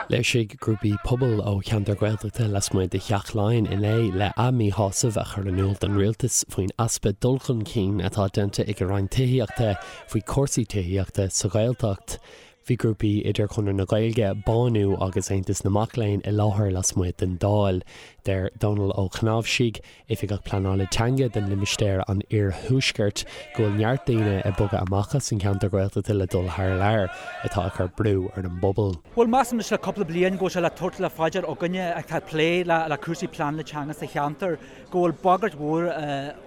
Léirsigh grúpaí pobail ó cheantar Gaeltachta lasmuigh de Theach Laighean inné le a míshásamh a chur in iúl don rialtas faoin easpa dul chun cinn atá déanta ag an Roinn Tithíochta faoi chúrsaí tithíochta sa Ghaeltacht. Bhí grúpaí idir Conradh na Gaeilge, Bánú agus Aontas na Mac Léinn i láthair lasmuigh den Dáil. Deir Dónal Ó Cnáimhsí, Oifigeach Pleanála Teanga don limistéar an Iarthuaiscirt, go bhfuil neart daoine ag bogadh amach as an cheantar Gaeltachta le dul thar lear, atá ag cur brú ar an bpobal. Bhuel, measaim anois le cúpla bliain go bhfuil sé le tabhairt le faoi dear againne atá ag plé le cúrsaí pleanála teanga sa cheantar go bhfuil bagairt mhór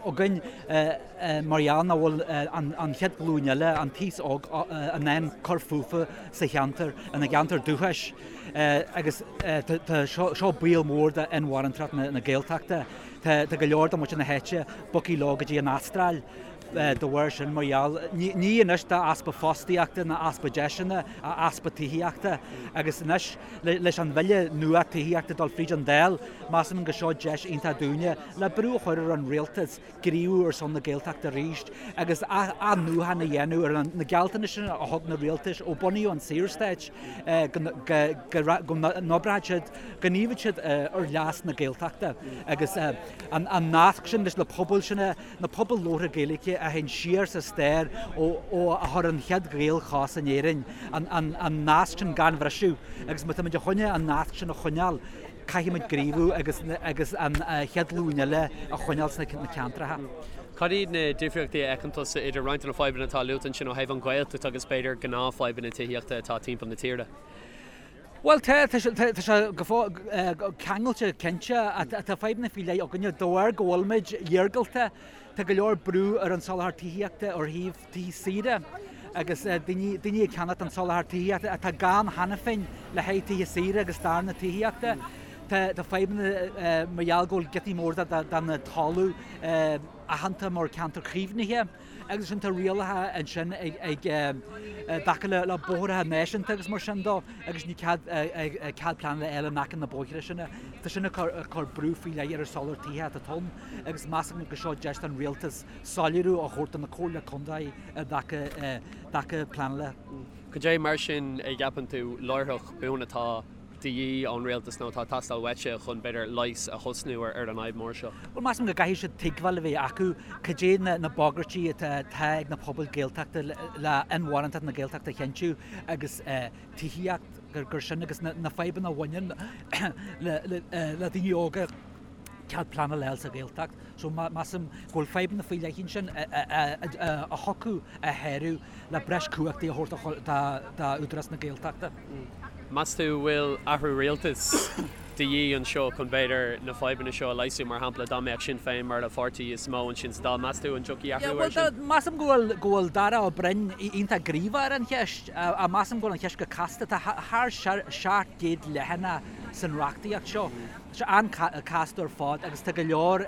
againn mar gheall nach bhfuil an chéad ghlúin eile, an t-aos óg, in ann cur fúthu sa cheantar, ina gceantar dúchais. Agus tá seo baol mór d'inmharthanacht na Gaeltachta. Tá go leor de mhuintir na háite bogtha leo go dtí an Astráil de bharr sin mar gheall, ní anois d'easpa fostaíochta ná easpa deiseanna ach easpa tithíochta. Agus anois leis an bhille nua tithíochta dul fríd an Dáil, measaim go seo deis iontach dúinne le brú a chur ar an rialtas gníomhú ar son na Gaeltachta arís agus athnuachan a dhéanamh ar na gealltanais sin a thug na rialtais ó bunaíodh an Saorstát go n-oibreodh siad, go ngníomhódh siad ar leas na Gaeltachta agus an nasc sin leis na pobail sin, na pobail labhartha Gaeilge a théann siar sa stair ó a chuir an chéad Ghael chos in Éirinn, an nasc sin gan bhriseadh agus má táimid a choinne an nasc sin a choinneáil, Caithfidh muid gníomhú agus agus an chéad ghlúin eile a choinneáil sna ceantracha. Cad iad na difríochtaí a fheiceann tusa idir roinnt de na fadhbanna atá luaite ansin ó thaobh an Ghaeltacht agus b'fhéidir gnáthfhadhbanna tithíochta atá timpeall na tíre? Bhuel tá, tá sé go ceangailte cinnte. Tá fadhbanna faoi leith againne de bharr go bhfuilimid iargúlta. Tá go leor brú ar an soláthar tithíochta ó thaobh tithe saoire agus daoine ag ceannacht an soláthar tithíochta atá gann cheana féin le haghaidh tithe saoire agus darna tithíochta. Tá fadhbanna mar gheall go bhfuil giotaí móra den talamh aitheanta mar ceantar caomhnaithe agus ansin tá rialacha ansin ag dtaca le bóithre náisiúnta agus mar sin dó agus ní cead cead pleanála a fháil in aice na bóithre sin. Tá sin ag cur brú faoi leith ar an soláthar tithe atá ann agus measaim go seo deis don rialtas soiléiriú a thabhairt do na Comhairle Contae i dtaca pleanála. Cad é mar sin a gceapann tú láithreach buan atá de dhíth ón rialtas nó atá ag teastáil uaitse chun, b'fhéidir, leigheas a thosnú ar an fhadhb mhór seo? Bhuel, measaim go gcaithfidh siad tuigbheáil a bheith acu cad é na bagairtí atá ag na pobail Gaeltachta le inmharthanacht na Gaeltachta a chinntiú agus tithíocht, gur sin agus na fadhbanna a bhaineann le daoine óga. cead pleanála a fháil sa Ghaeltacht. So measaim go bhfuil fadhbanna faoi leith ansin a thiocfadh a shárú le breis cumhachtaí a thabhairt d'Údarás na Gaeltachta. Meas tú bhfuil athrú rialtais de dhíth anseo chun b'fhéidir na fadhbanna seo a leigheasú? Mar shampla, dá mbeadh Sinn Féin mar an pháirtí is mó ansin sa Dáil, meas tú an dtiocfaidh athrú air sin? Measaim go bhfuil go bhfuil Darragh Ó Broin iontach gníomhach ar an cheist. Measaim go bhfuil an cheist go casta. Tá thar 700 leathanach san reachtaíocht seo. Tá sé an-chasta ar fad agus tá go leor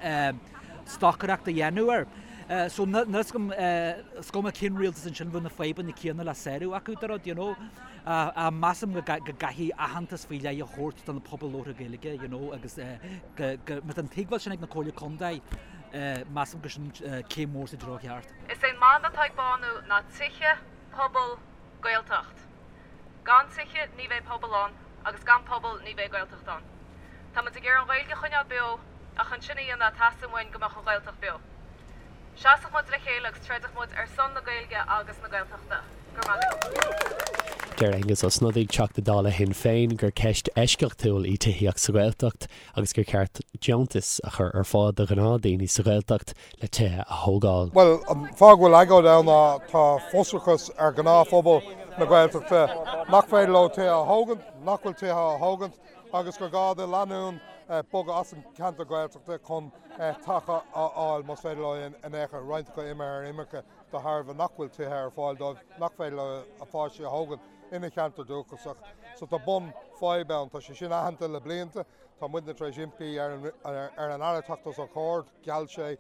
stocaireacht a dhéanamh air. So níl fhios agam, is cuma cén rialtas ansin bheadh na fadhbanna céanna le sárú acu de rud, you know. Measaim go gcaithfidh aitheantas faoi leith a thabhairt do na pobail labhartha Gaeilge, you know, agus go, má tá an tuigbheáil sin ag na Comhairle Contae, measaim go sin céim mhór sa treo cheart. Is é an mana atá ag Bánú ná Tithe, Pobal, Gaeltacht. Gan tithe ní bheidh pobal ann agus gan pobal ní bheidh Gaeltacht ann. Tá muid ag iarraidh an Ghaeilge a choinneáil beo ach chun sin a dhéanamh teastaíonn uainn go mbeadh an Ghaeltacht beo. Seasadh muid le chéile agus troideadh muid ar son na Gaeilge agus na Gaeltachta. Go raibh maith agat. Deir Aengus Ó Snodaigh, Teachta Dála Shinn Féin, gur ceist eisceachtúil í tithíocht sa Ghaeltacht agus gur cheart deontais a chur ar fáil do ghnáthdhaoine sa Ghaeltacht le tithe a thógáil. Bhuel, an fáth go bhfuil agóid ann ná tá frustrachas ar ghnáthphobal na Gaeltachta nach féidir leo tithe a thógaint, nach bhfuil tithe á thógaint agus gur gá do lánúin bogadh as an cheantar Gaeltachta chun teach a fháil más féidir leo in aon chor. Roinnt acu imithe ar imirce de thairbhe nach bhfuil tithe ar fáil dóibh, nach féidir leo a pháistí a thógaint ina cheantar dúchasach. So tá bun fadhb ann. Tá sé sin aitheanta le blianta. Tá muidne tar éis impí ar an Aire teacht os ár gcomhair. Gheall sé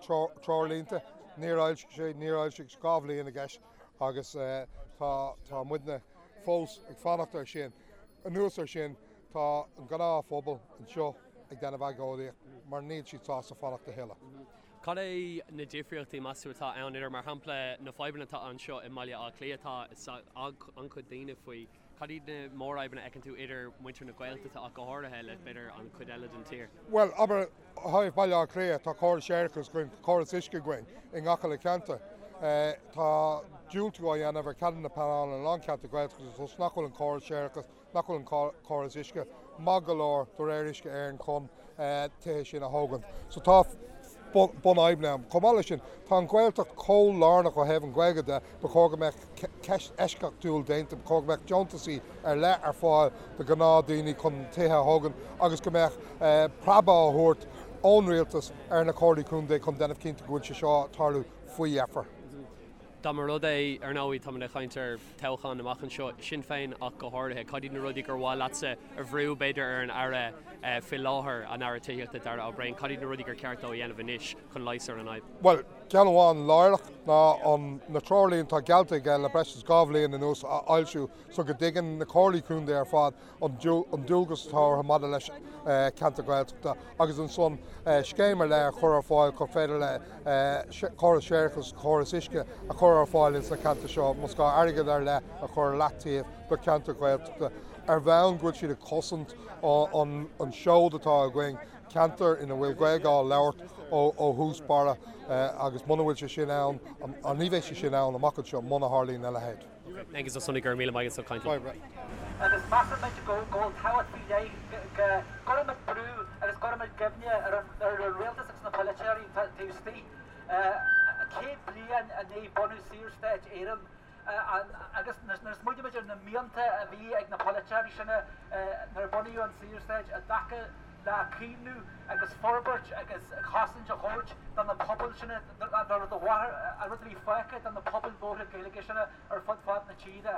treoirlínte, níor fhoilsigh sé, níor fhoilsigh, 2 bhliain i gceist agus tá muidne fós ag fanacht air sin. Anuas air sin, tá an gnáthphobal anseo ag déanamh agóidíocht mar níl siad sásta fanacht a thuilleadh. Cad é na difríochtaí, meas tú, atá ann idir, mar shampla, na fadhbanna atá anseo i mBaile Átha Cliath, tá an-chuid daoine faoi. Cad iad na mórfhadhbanna a fheiceann tú idir muintir na Gaeltachta ach go háirithe le b'fhéidir an chuid eile den tír? Bhuel, abair, ó thaobh Baile Átha Cliath, tá córas séarachais againn, tá córas uisce againn i ngach uile cheantar. Tá diúltú á dhéanamh ar cheadanna pleanála in a lán ceantar Gaeltachta toisc nach bhfuil an córas séarachais, nach bhfuil an córas uisce maith go leor de réir Uisce Éireann chun tithe sin a thógaint. So tá bunfhadhbanna ann. Chomh maith leis sin, tá an Ghaeltacht chomh lárnach ó thaobh an Ghaeilge de, ba chóir go mbeadh ceist eisceachtúil déanta, ba chóir go mbeadh deontasaí ar leith ar fáil do ghnáthdhaoine chun tithe a thógaint agus go mbeadh preabadh á thabhairt ón rialtas ar na comhairlí contae chun déanamh cinnte go bhfuil sé seo ag tarlú faoi dheifir. Dá mba rud é, ar ndóigh, táimid ag caint ar toghchán amach anseo, Sinn Féin ach go háirithe, cad iad na rudaí gur mhaith leatsa a bhrú, b'fhéidir, ar an Aire faoi láthair, an Aire Tithíochta, Darragh O'Brien, cad iad na rudaí gur ceart dó a dhéanamh anois chun leigheas ar an fhadhb? Bhuel, ceann amháin láithreach ná an na treoirlínte atá geallta aige le breis is 2 bhliain anuas a fhoilsiú so go dtuigeann na comhairlí contae ar fad an dualgas atá orthu maidir leis ceantar Gaeltachta agus ansan scéim ar leith a chur ar fáil chun féidir le córas séarachais, córas uisce a chur ar fáil ins na ceantair seo, más gá airgead ar leith a chur ar leataobh do cheantair Ghaeltachta ar bhonn go bhfuil siad ag cosaint an seod atá againn, ceantar ina bhfuil Gaeilge á labhairt ó thús barra agus muna bhfuil sé sin ann, ní bheidh sé sin ann amach anseo muna tharlaíonn a leithéid. Aengus Ó Snodaigh, go raibh míle maith agat as caint linn. Agus measaimid go bhfuil tábhacht faoi leith go gcuirfimid brú agus go gcuirfimid cuimhne ar an rialtas agus na polaiteoirí taobh istigh. 100 bliain i ndiaidh bunú Saorstát Éireann agus nuair a smaoinímid ar na mianta a bhí ag na polaiteoirí sin nuair a bunaíodh an Saorstát i dtaca le caomhnú agus forbairt agus cosaint a thabhairt do na pobail sin, an rud a bhí fágtha do na pobail mhóra Gaeilge sin ar fud fad na tíre.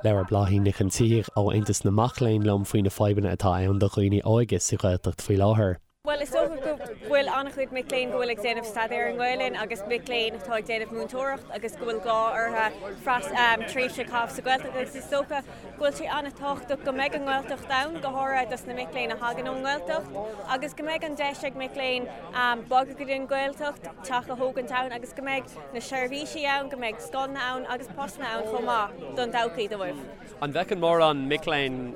Labhair Bláithín Nic an tSíthigh ó Aontas na Mac Léinn liom faoi na fadhbanna atá ann do dhaoine óige sa Ghaeltacht faoi láthair. Bhuel, is dócha go bhfuil an-chuid mic léinn go bhfuil ag déanamh staidéar i nGaelainn agus mic léinn atá ag déanamh múinteoireacht agus go bhfuil gá orthu tréimhse a chaitheamh sa Ghaeltacht agus is dócha go bhfuil sé an-tábhachtach go mbeidh an Ghaeltacht ann, go háirithe dos na mic léinn a thagann ón nGaeltacht, agus go mbeidh an deis ag mic léinn bogadh go dtí an Ghaeltacht, teach a thógaint ann agus go mbeidh na seirbhísí ann, go mbeidh scoileanna ann agus postanna ann chomh maith don todhchaí dóibh. An bhfeiceann mórán mic léinn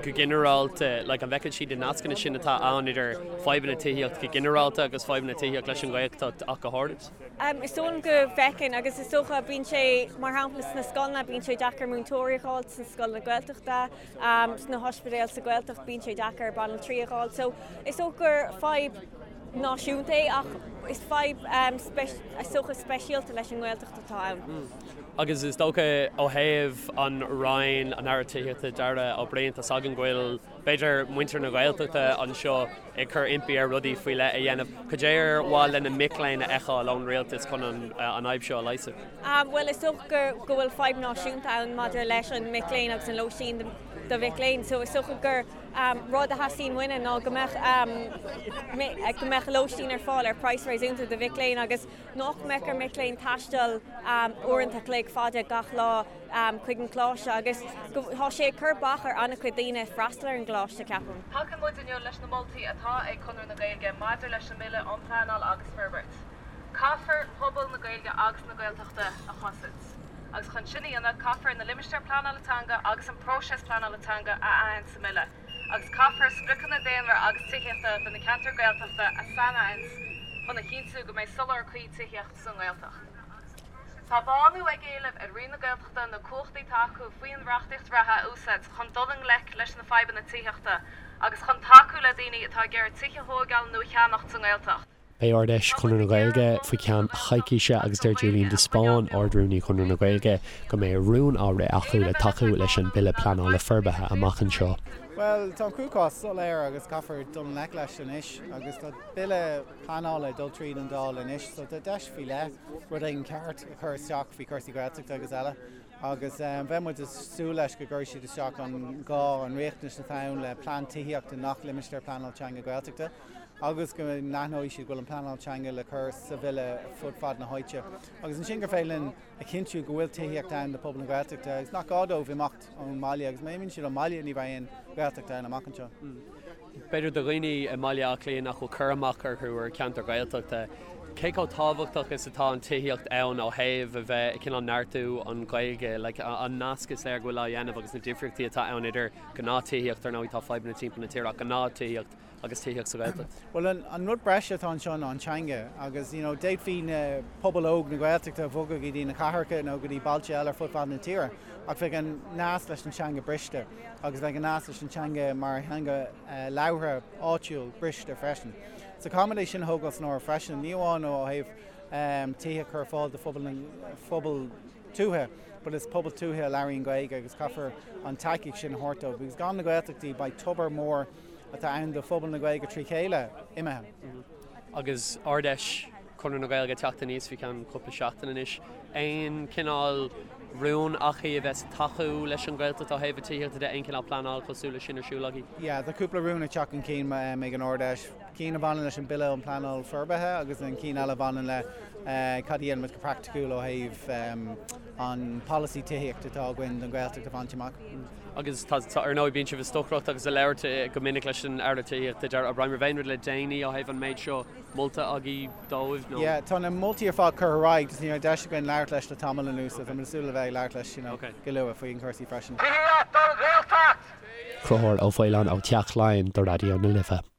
go ginearálta, like, an bhfeiceann siad na nascanna sin atá ann idir fadhbanna tithíochta go ginearálta agus fadhbanna tithíochta leis an Ghaeltacht ach go háirid? Is dóigh liom go bhfeiceann agus is dócha bíonn sé, mar shampla sna scoileanna, bíonn sé deacair múinteoirí a fháil sna scoileanna Gaeltachta, sna hospidéil sa Ghaeltacht bíonn sé deacair banaltraí a fháil. So is dócha gur fadhb náisiúnta é ach is fadhb is dócha speisialta leis an nGaeltacht atá ann. Agus is dócha ó thaobh an Roinn, an Aire Tithíochta, Darragh O'Brien, tá's againn go bhfuil b'fhéidir muintir na Gaeltachta anseo ag cur impí air rudaí faoi leith a dhéanamh. Cad é ar mhaith le na mic léinn a fheiceáil ón rialtas chun an fhadhb seo a leigheasú? Bhuel, is dócha go bhfuil fadhb náisiúnta ann maidir leis an mic léinn agus an lóistín do mhic léinn. So is dócha gur rud a theastaíonn uainne ná go mbeadh go mbeadh lóistín ar fáil ar praghas réasúnta do mhic léinn agus nach mbeadh ar mic léinn taisteal uaireanta a chloig fada gach lá chuig an gcoláiste agus go tá sé ag cur bac ar an-chuid daoine freastal ar an gcoláiste, ceapaim. Tacaíonn muid inniu leis na moltaí atá ag Conradh na Gaeilge maidir leis an mBille um Pleanáil agus Forbairt. Caithfear pobal na Gaeilge agus na Gaeltachta a chosaint. Agus chun sin a dhéanamh, caithfear na limistéir pleanála teanga agus an próiseas pleanála teanga a aithint sa mBille. Agus caithfear spriocanna daonra agus tithíochta do na ceantair Gaeltachta a sainaithint chun a chinntiú go mbeidh soláthar cuí tithíochta sa nGaeltacht. Tá Bánú ag éileamh ar Roinn na Gaeltachta na cumhachtaí atá acu faoin reachtaíocht reatha a úsáid chun dul i ngleic leis na fadhbanna tithíochta agus chun tacú le daoine atá ag iarraidh tithe a thóigeáil nó a cheannacht sa nGaeltacht. Beidh Ard-Fheis Chonradh na Gaeilge faoi cheann coicíse agus deir Julian de Spáinn, Ard-Rúnaí Chonradh na Gaeilge, go mbeidh rún á rith acu le tacú leis an Bille Pleanála Forbartha amach anseo. Bhuel, tá an cruachás soiléir agus caithfear dul i ngleic leis anois agus tá Bille pleanála ag dul tríd an Dáil anois so tá deis faoi leith rud éigin ceart a chur isteach faoi chúrsaí Gaeltachta agus eile agus bheadh muid ag súil leis go gcuirfidh siad isteach an gá, an riachtanas atá ann le plean tithíochta i ngach limistéar pleanála teanga Gaeltachta agus go n-aithneoidh siad go bhfuil an pleanáil teanga le cur sa bhille fud fad na háite agus ansin gur féidir linn a chinntiú go bhfuil tithíocht ann do phobal na Gaeltachta agus nach gá dóibh imeacht ón mbaile agus má imíonn siad ón mbaile ní bheidh aon Ghaeltacht ann amach anseo. B'fhéidir do dhaoine i mBaile Átha Cliath nach bhfuil cur amach orthu ar cheantar Gaeltachta. Cé chomh tábhachtach is atá an tithíocht ann ó thaobh a bheith ag cineál neartú an Ghaeilge, like an nasc is léir go bhfuil á dhéanamh agus na difríochtaí atá ann idir gnáth tithíocht, ar ndóigh tá fadhbanna timpeall na tíre ach gnáth tithíocht agus tithíocht sa Ghaeltacht. Bhuel an rud breise atá anseo ná an teanga agus you know d'fhéadfaí na pobal óg na Gaeltachta a bhogadh go dtí na cathracha nó go dtí bailte eile ar fud fad na tíre ach bheadh an nasc leis an teanga briste agus bheadh an nasc leis an teanga mar theanga labhartha áitiúil briste freisin. So caithfimid é sin a thógáil san áireamh freisin, ní amháin ó thaobh tithe a chur ar fáil do phobal tuaithe, but is pobal tuaithe a labhraíonn Gaeilge agus caithfear an tacaíocht sin a thabhairt dóibh because gan na Gaeltachtaí beidh tobar mór atá ann do phobal na Gaeilge trí chéile imithe. Agus Ard-Fheis Chonradh na Gaeilge ag teacht aníos faoi cheann cúpla seachtain anois, aon chineál rún agaibh a bheas ag tacú leis an Ghaeltacht ó thaobh tithíochta de, aon chineál pleanáil cosúil leis sin ar siúl agaibh? Yeah, tá cúpla rún ag teacht chun cinn ag an Ard-Fheis, cinn a bhaineann leis an Bille um Pleanáil Forbartha agus an cinn eile a bhaineann le cad a dhéanfaimid go praiticiúil ó thaobh an polasaí tithíochta atá againn don Ghaeltacht a bhaint amach. Agus tá, ar ndóigh, bíonn sibh ag stocaireacht agus ag labhairt go minic leis an Aire Tithíochta, Darragh O'Brien, raibh aon rud le déanaí ó thaobh an méid seo molta agaibh dóibh nó? Yeah, tá na moltaí ar fad curtha ar aghaidh, just ní raibh deis againn labhairt leis le tamall anuas, so táimid ag súil le bheith ag labhairt leis, you know, go luath faoi chúrsaí freisin. Tithíocht don Ghaeltacht! Conchúr Ó Faoláin ó Theach Laighean do Raidió na Life.